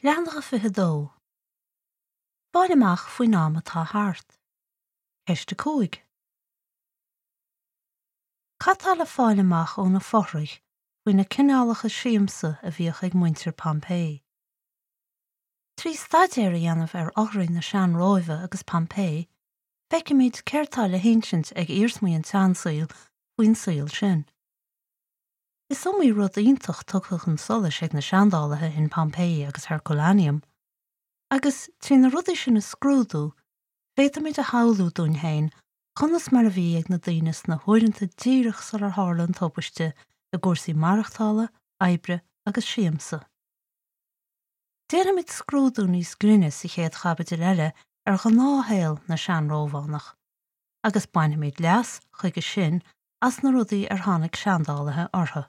Leathanach 22. Fáil amach faoin am atá thart. Ceist 5. Cad tá le fáil amach ó na fothraigh faoi na cineálacha siamsa a bhíodh ag muintir Pompeii? Trí staidéar a dhéanamh ar fhothraigh na sean-Róimhe agus Pompeii, feicfimid céard tá le hinsint ag iarsmaí an tseansaoil faoin saol sin. Is iomaí rud iontach tugtha chun solais ag na seandálaithe in Pompeii agus Herculaneum, agus trí na rudaí sin a scrúdú, féadfaimid a shamhlú dúinn féin conas mar a bhí ag na daoine sna huaireanta díreach sular tharla an tubaiste i gcúrsaí maireachtála, oibre agus siamsa. Déanfaimid scrúdú níos grinne sa chéad chaibidil eile ar ghnáthshaol na sean-Rómhánach, agus bainfimid leas, chuige sin, as na rudaí ar tháinig seandálaithe orthu.